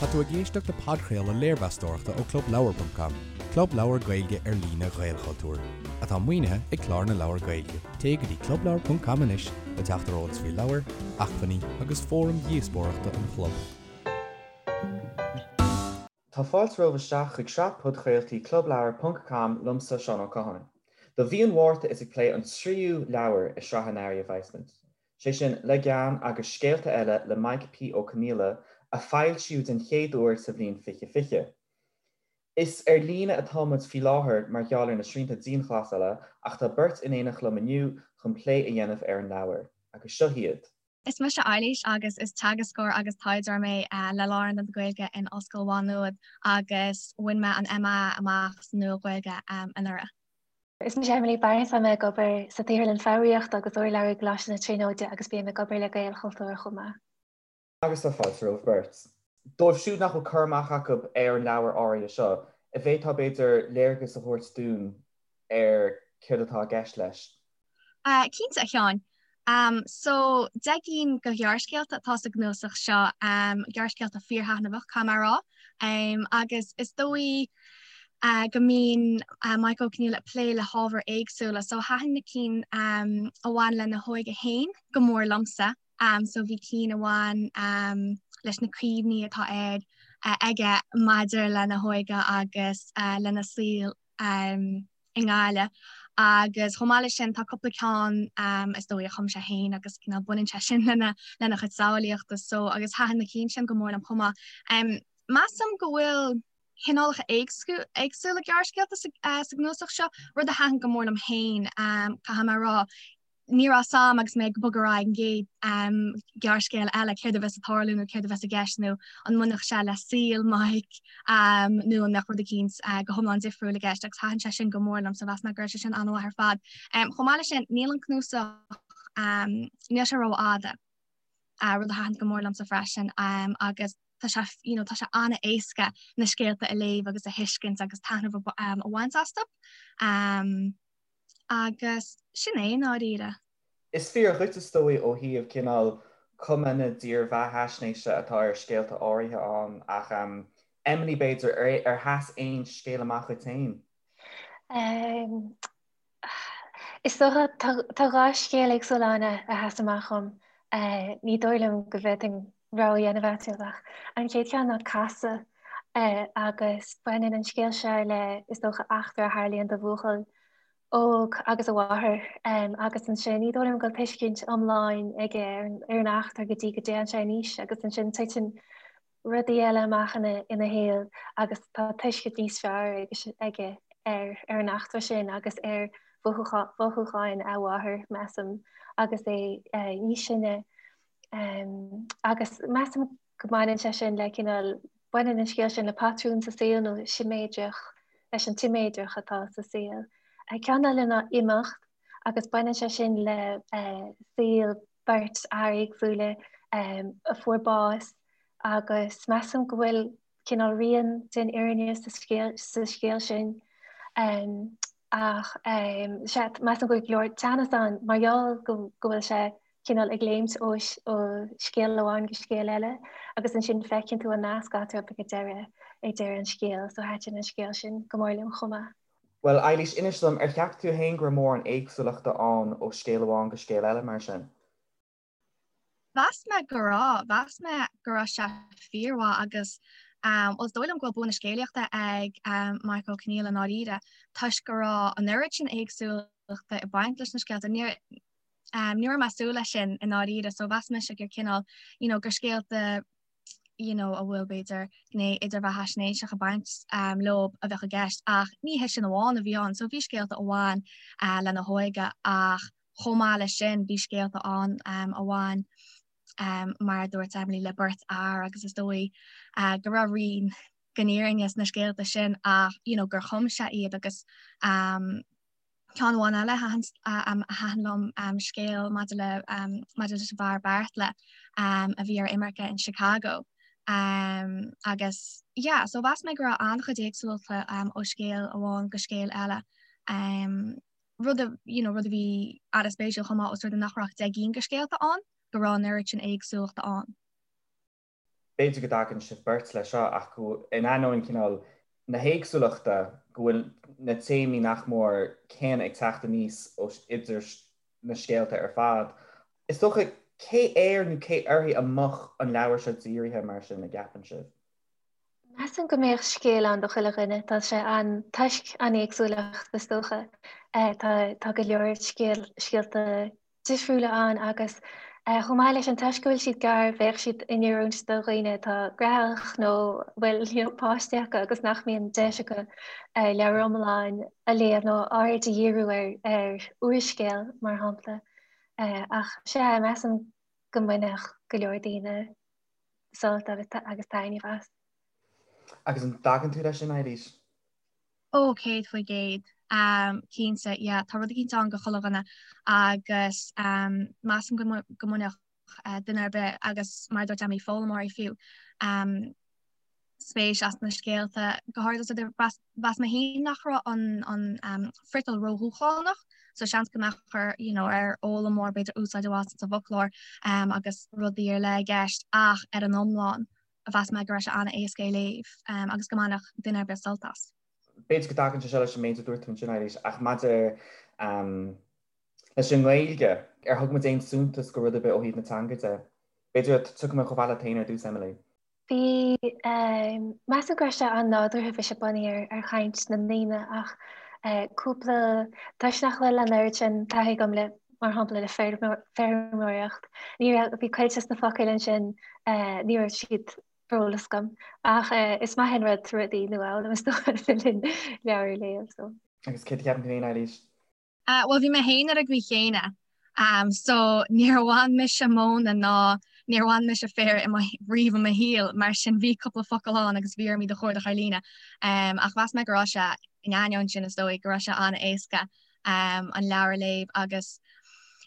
Tá tú ag éisteacht le podchraoladh léirmheastóireachta ó ClubLeabhar.com, club leabhar Gaeilge ar líne Ghaelchultúir, atá maoinithe ag Clár na Leabhar Gaeilge. Téigh go dtí ClubLeabhar.com anois le teacht ar eolas faoi leabhair, acmhainní agus fóraim dhíospóireachta an chlub. Tá fáilte romhaibh isteach chuig sraith podchraoltaí ClubLeabhar ponc com liomsa, Seán Ó Catháin. Do mhí an Mhárta is ag plé an tríú leabhar i sraith an earraigh a bheas muid. sé sin Le Gean agus Scéalta Eile le Maidhc P. Ó Conghaile, a foilsíodh den chéad uair sa bhliain 2020. Is ar líne atá muid faoi láthair mar gheall ar na srianta dianghlasála ach tá beirt in éineacht liom inniu chun plé a dhéanamh ar an leabhar. Agus seo hiad. Is mise Eilís agus is teagascóir agus taighdeoir mé le Lárionad na Gaeilge in Ollscoil Mhá Nuad agus bhain mé an MA amach sa Nua-Ghaeilge anuraidh. Is mise Emily Barnes, tá mé ag obair sa tSaotharlann Foghraíochta agus Urlabhra i gColáiste na Tríonóide agus bím ag obair le Gaelchultúr chomh maith. Agus tá fáilte romhaibh beirt. Dóibh siúd nach bhfuil cur amach acu ar an leabhar áirithe seo, an bhféadfá b'fhéidir léargas a thabhairt dúinn ar céard atá i gceist leis? Cinnte, a Sheáin. So, 10 gcinn de ghearrscéalta atá sa gcnuasach seo, gearrscéalta fíorthaitneamhach, caithfidh mé a rá. Agus is dóigh go mbíonn Maidhc Ó Conghaile ag plé le hábhair éagsúla, so thaitin na cinn a bhain lena hóige féin go mór liomsa. So bhí cinn a bhain leis na cuimhní atá air aige maidir lena hóige agus lena saol i nGaillimh agus chomh maith leis sin tá cúpla ceann is dóigh a chum sé féin agus cineál baineann sé sin lena lena chuid samhlaíochta so agus thaitin na cinn sin go mór liom chomh maith. Measaim go bhfuil cineálacha éagsúla gearrscéalta sa gcnuasach seo, rud a thaitin go mór liom féin caithfidh mé a rá. ní raibh a fhios a'm agus mé ag bogadh ar aghaidh an gcéad ghearrscéal eile céard a bheas ag tarlú nó céard a bheas i gceist nó an mbainfeadh sé le saol Mike nó an mbeadh rud eicínt go hiomlán difriúil i gceist agus thaitin sé sin go mór liom so mheas mé go raibh sé sin an-mhaith ar fad. Chomh maith leis sin níl an cnuasach níl sé rófhada, rud a thaitin go mór liomsa freisin agus tá sé you know tá sé an-éasca na scéalta a léamh agus a thuiscint agus taitneamh a bhaint astu. Agus sin é, i ndáiríre. Is fíor dhuit is dóigh ó thaobh cineál cuma na dírbheathaisnéise atá ar scéalta áirithe ann ach Emily b'fhéidir, ar sheas aon scéal amach dhuit féin? Is dócha, tá dhá scéal éagsúla ann a sheas amach dhom. Ní dóigh liom go bhféadfainn rogha a dhéanamh eatarthu ach an chéad cheann ná Casadh agus baineann an scéal seo le, is dócha, eachtra a tharlaíonn do bhuachaill óg agus a mháthair agus ansin ní dóigh liom go bhfuil tuiscint iomlán aige ar an eachtra go dtí go dtéann sé in aois agus ansin titeann rudaí eile amach ina shaol agus tá tuiscint níos fearr aige ar an eachtra sin agus ar mhothúcháin a mháthar, measaim, agus é níos sine. Agus measaim go mbaineann sé sin le cineál, baineann an scéal sin le patrún sa saol nó siméadrach, leis an tsiméadracht atá sa saol. Ceann eile ná Imeacht agus baineann sé sin le saol beirt fhear éagsúla a fuair bás agus measaim go bhfuil cineál rian den fhírinne sa scéal sin. Ach sea, measaim go bhfuil go leor teannas ann mar gheall go bhfuil sé cineál ag léimt ó scéal amháin go scéal eile agus ansin feiceann tú an nasc eatarthu ag deireadh, ag deireadh an scéil. So thaitin an scéal sin go mór liom chomh maith. Bhuel, Eilís, inis dom, ar cheap tú féin go raibh mórán éagsúlachta ann ó scéal amháin go scéal eile mar sin? Mheas mé go raibh. Mheas mé go raibh sé fíormhaith agus bhuel is dóigh liom go bhfuil bua na scéalaíochta ag Maidhc Ó Conghaile i ndáiríre toisc go raibh an oiread sin éagsúlachta ag baint leis na scéalta. Ní ní raibh mé ag súil leis sin i ndáiríre so mheas mise gur cineál you know gur scéalta you know a bhfuil b'fhéidir gné idirbheathaisnéiseach ag baint leo a bheadh i gceist ach ní hé sin amháin a bhí ann. So bhí scéalta a bhain lena hóige ach chomh maith leis sin bhí scéalta ann a bhain mar a dúirt Emily le beirt fhear agus is dóigh go raibh rian den fhírinne sna scéalta sin ach you know gur chum sé iad agus Ceann amháin eile a thaitin liom scéal maidir le maidir leis an bhfear Beartla a bhí ar imirce in Chicago agus yeah so mheas mé go raibh an-chuid éagsúlachta ó scéal amháin go scéal eile. Rud a you know rud a bhí an-spéisiúil chomh maith os rud é nach raibh ach 10 gcinn de scéalta ann go raibh an oiread sin éagsúlachta ann. B'fhéidir go dtagann sibh beirt leis seo ach go, in ainneoin cineál na héagsúlachta, go bhfuil na téamaí nach mór céanna ag teacht aníos ó idir na scéalta ar fad. Is dócha, cé air nó cé uirthi a mbeadh an leabhar seo dírithe mar sin, an gceapann sibh? Measaim go mbeadh scéal ann do chuile dhuine. Tá sé an, toisc an éagsúlacht is dócha. Tá, tá go leor scéal, scéalta difriúla ann agus chomh maith leis sin toisc go bhfuil siad gearr bheadh siad in oiriúint do dhaoine atá graitheach nó bhfuil you know, páistí acu agus nach mbíonn deis acu leabhar iomlán a léamh nó aird a dhíriú ar, ar úrscéal mar shampla. Ach sea, measaim go mbainfeadh go leor daoine sult agus taitneamh as. Agus an dtagann tú leis sin, Eilís? Ó, 100%. Cinnte, yeah, tá rud eicínt ann do chuile dhuine agus measaim go mbainfeadh duine ar bith agus mar a dúirt Emily, foghlaimeoirí fiú, spéis as na scéalta. Go háirithe mheas mé féin nach raibh an friotal ródhúshlánach, so seans go mbeadh ar, you know, ar fhoghlaimeoir b'fhéidir úsáid a bhaint as an bhfoclóir agus rudaí ar leith i gceist ach ar an iomlán, mheas mé go raibh sé an-éasca é léamh agus go mbainfeadh duine ar bith sult as. B'fhéidir go dtagann sé seo leis an méid a dúirt tú ansin, Eilís, ach maidir leis an nGaeilge, ar thug muid aon suntas go rud ar bith ó thaobh na teanga de? B'fhéidir tiocfaidh mé chomh fada leat féin ar dtús, Emily. Bhí, measaim go raibh sé an-nádúrtha, bhí sé bunaithe ar chaint na ndaoine ach cúpla, toisc nach bhfuil an oiread sin taithí agam le mar shampla le feirmeoireacht. Ní raibh, bhí cuid des na focail ansin, ní raibh siad ar eolas agam. Ach is maith an rud rudaí nua a fhoghlaim is dócha le linn leabhar a léamh. So. Agus céard a cheapann tú féin, Eilís? Bhuel bhí mé féin ar an gcaoi chéanna. So níor bhain mise móna ná níor bhain mise féar i mo, riamh i mo shaol, mar sin bhí cúpla focal ann agus bhí orm iad a chuardach ar líne. Ach mheas mé go raibh sé, in ainneoin sin is dóigh, go raibh sé an-éasca an leabhar a léamh agus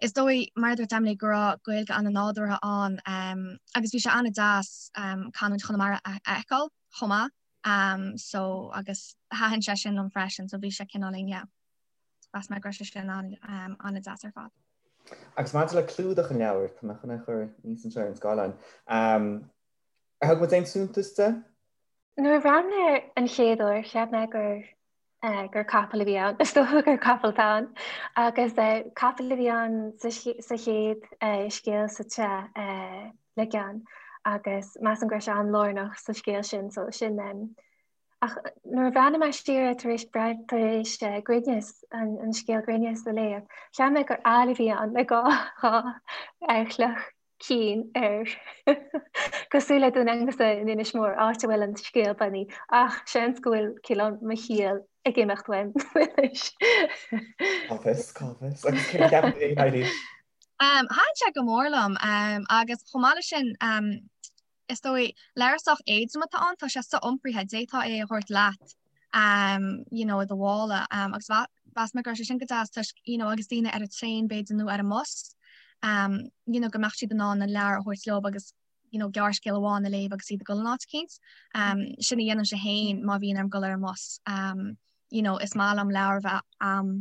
is dóigh, mar a dúirt Emily, go raibh Gaeilge an-nádúrtha ann agus bhí sé an-deas canúint Chonamara a fheiceáil chomh maith so agus thaitin sé sin liom freisin so bhí sé cineáilín yeah mheas mé go raibh sé sin an-deas ar fad. Agus maidir le clúdach an leabhair, tá mé chun é a chur aníos anseo ar an scáileán, ar thug muid aon suntas de? Nuair a bhreathnaigh mé air an chéad uair, cheap mé gur gur capall a bhí ann. Is dócha gur capall atá ann. Agus capall a bhí ann sa chéad scéal sa tsraith Le Gean agus measaim go raibh sé an-lárnach sa scéal sin so sin Ach nuair a bhreathnaigh mé siar tar éis tar éis Grinneas an scéal Grinneas a léamh, cheap mé gur eala a bhí ann le dhá chloch cinn air. Cosúil le Dún Aonghasa in Inis Mór, áit a bhfuil an scéal bunaithe, ach seans go bhfuil cineál mo chiall ag imeacht uaim anois. Cá bhfios, cá bhfios. Agus céard a cheapann tú féin, Eilís? Thaitin sé go mór liom agus chomh maith leis sin, Is dóigh, leabhar sách éadrom atá ann, tá sé so-iompraithe, d'fhéadfá é a thabhairt leat you know i do mhála agus mheas mé go raibh sé sin go deas toisc you know agus daoine ar an traein b'fhéidir nó ar an mbus you know go mbeadh siad in ann an leabhar a thabhairt leo agus you know gearrscéal amháin a léamh agus iad ag dul in áit eicínt. Sin a dhéanaimse féin má bhíonn orm dul ar an mbus. You know is maith liom leabhar a bheith a'm.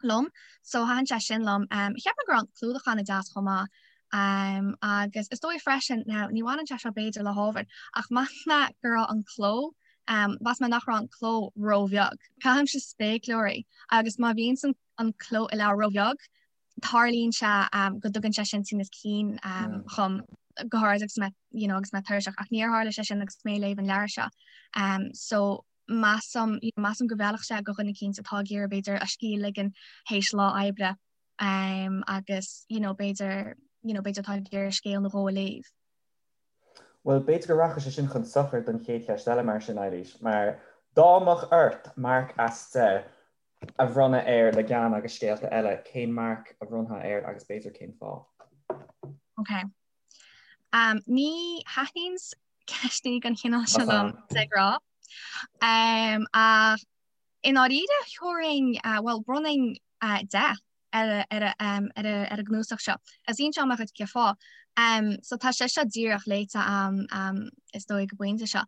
liom. So thaitin sé sin liom. Cheap mé go raibh an clúdach an-deas chomh maith. Agus is dóigh freisin, now ní bhaineann sé seo b'fhéidir le hábhar, ach mheas mé go raibh an cló, mheas mé nach raibh an cló róbheag. Caithimse spéacláirí agus má bhíonn an cló i leabhar róbheag, tarlaíonn sé go dtugann sé sin tinneas cinn dhom, go háirid agus mé, you know, agus mé tuirseach, ach níor tharla sé sin agus mé ag léamh an leabhair seo. So measaim, you know, measaim go bhfeilfeadh sé do dhuine eicínt atá ag iarraidh b'fhéidir a scíth a ligean théis lá oibre um, agus you know, b'fhéidir you know, b'fhéidir atá ag iarraidh scéal nó dhó a léamh. Bhuel, b'fhéidir go rachaidh sé sin chun sochair don chéad cheist eile mar sin, Eilís, mar dá mbeadh ort marc as 10 a bhronnadh ar Le Gean agus Scéalta Eile, cén marc a bhronnfá air agus b'fhéidir cén fáth? Ok. Um, ní thaitníonn ceisteanna den chineál seo liom de ghnáth. Ach i ndáiríre thabharfainn, bhuel, bhronnfainn 10 ar an gcnuasach seo. Is inseoidh mé dhuit cén fáth. So tá sé seo díreach léite a'm is dóigh ag an bpointe seo.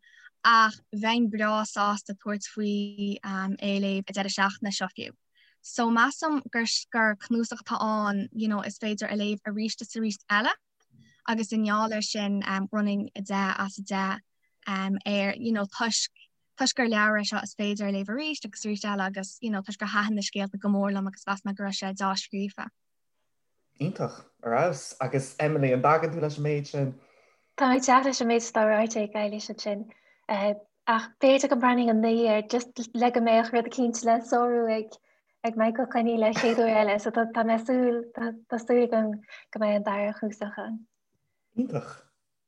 Ach bheinn breá sásta tabhairt faoi é a léamh an deireadh seachtaine seo fiú. So measaim gur gur cnuasach atá ann, you know, is féidir a léamh arís is arís eile. Agus i ngeall air sin bhronnfainn 10 as 10 air you know toisc toisc gur leabhar é seo is féidir a léamh arís agus arís eile agus you know toisc gur thaitin na scéalta go mór liom agus mheas mé go raibh sé deá-scríofa. Iontach, ar fheabhas. Agus Emily, an dtagann tú leis an méid sin? Tá mé ag teacht leis an méid atá ráite ag Eilís ansin. Ach b'fhéidir go mbronnfainn 9 air just le go mbeadh rud eicínt le sárú ag ag Michael Coinnigh le chéad uair eile, so tá mé súil, tá súil agam go mbeidh an dara chnuasach ann. Iontach.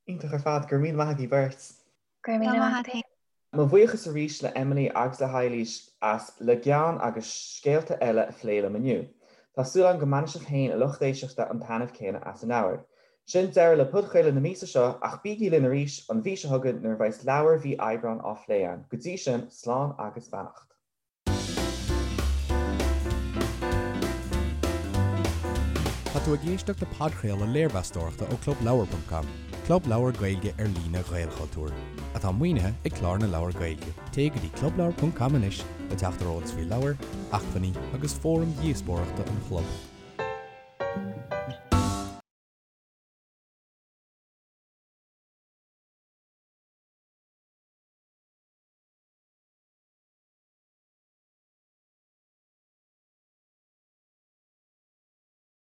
Iontach ar fad. Go raibh míle maith agaibh beirt. Go raibh míle maith agat féin. Mo bhuíochas arís le Emily agus le hEilís as Le Gean agus Scéalta Eile a phlé liom inniu. Tá súil agam go mbainfidh sibh féin, a lucht éisteachta, an taitneamh céanna as an leabhar. Sin deireadh le podchraoladh na míosa seo ach bígí linn arís an mhí seo chugainn nuair a bheas leabhar mhí Aibreáin á phlé againn. Go dtí sin, slán agus beannacht. Tá tú ag éisteacht le podchraoladh léirmheastóireachta ó ClubLeabhar.com, club leabhar Gaeilge ar líne Ghaelchultúir, atá maoinithe ag Clár na Leabhar Gaeilge. Téigh go dtí clubleabhar.com anois le teacht ar eolas faoi leabhair, acmhainní agus fóraim dhíospóireachta an chlub.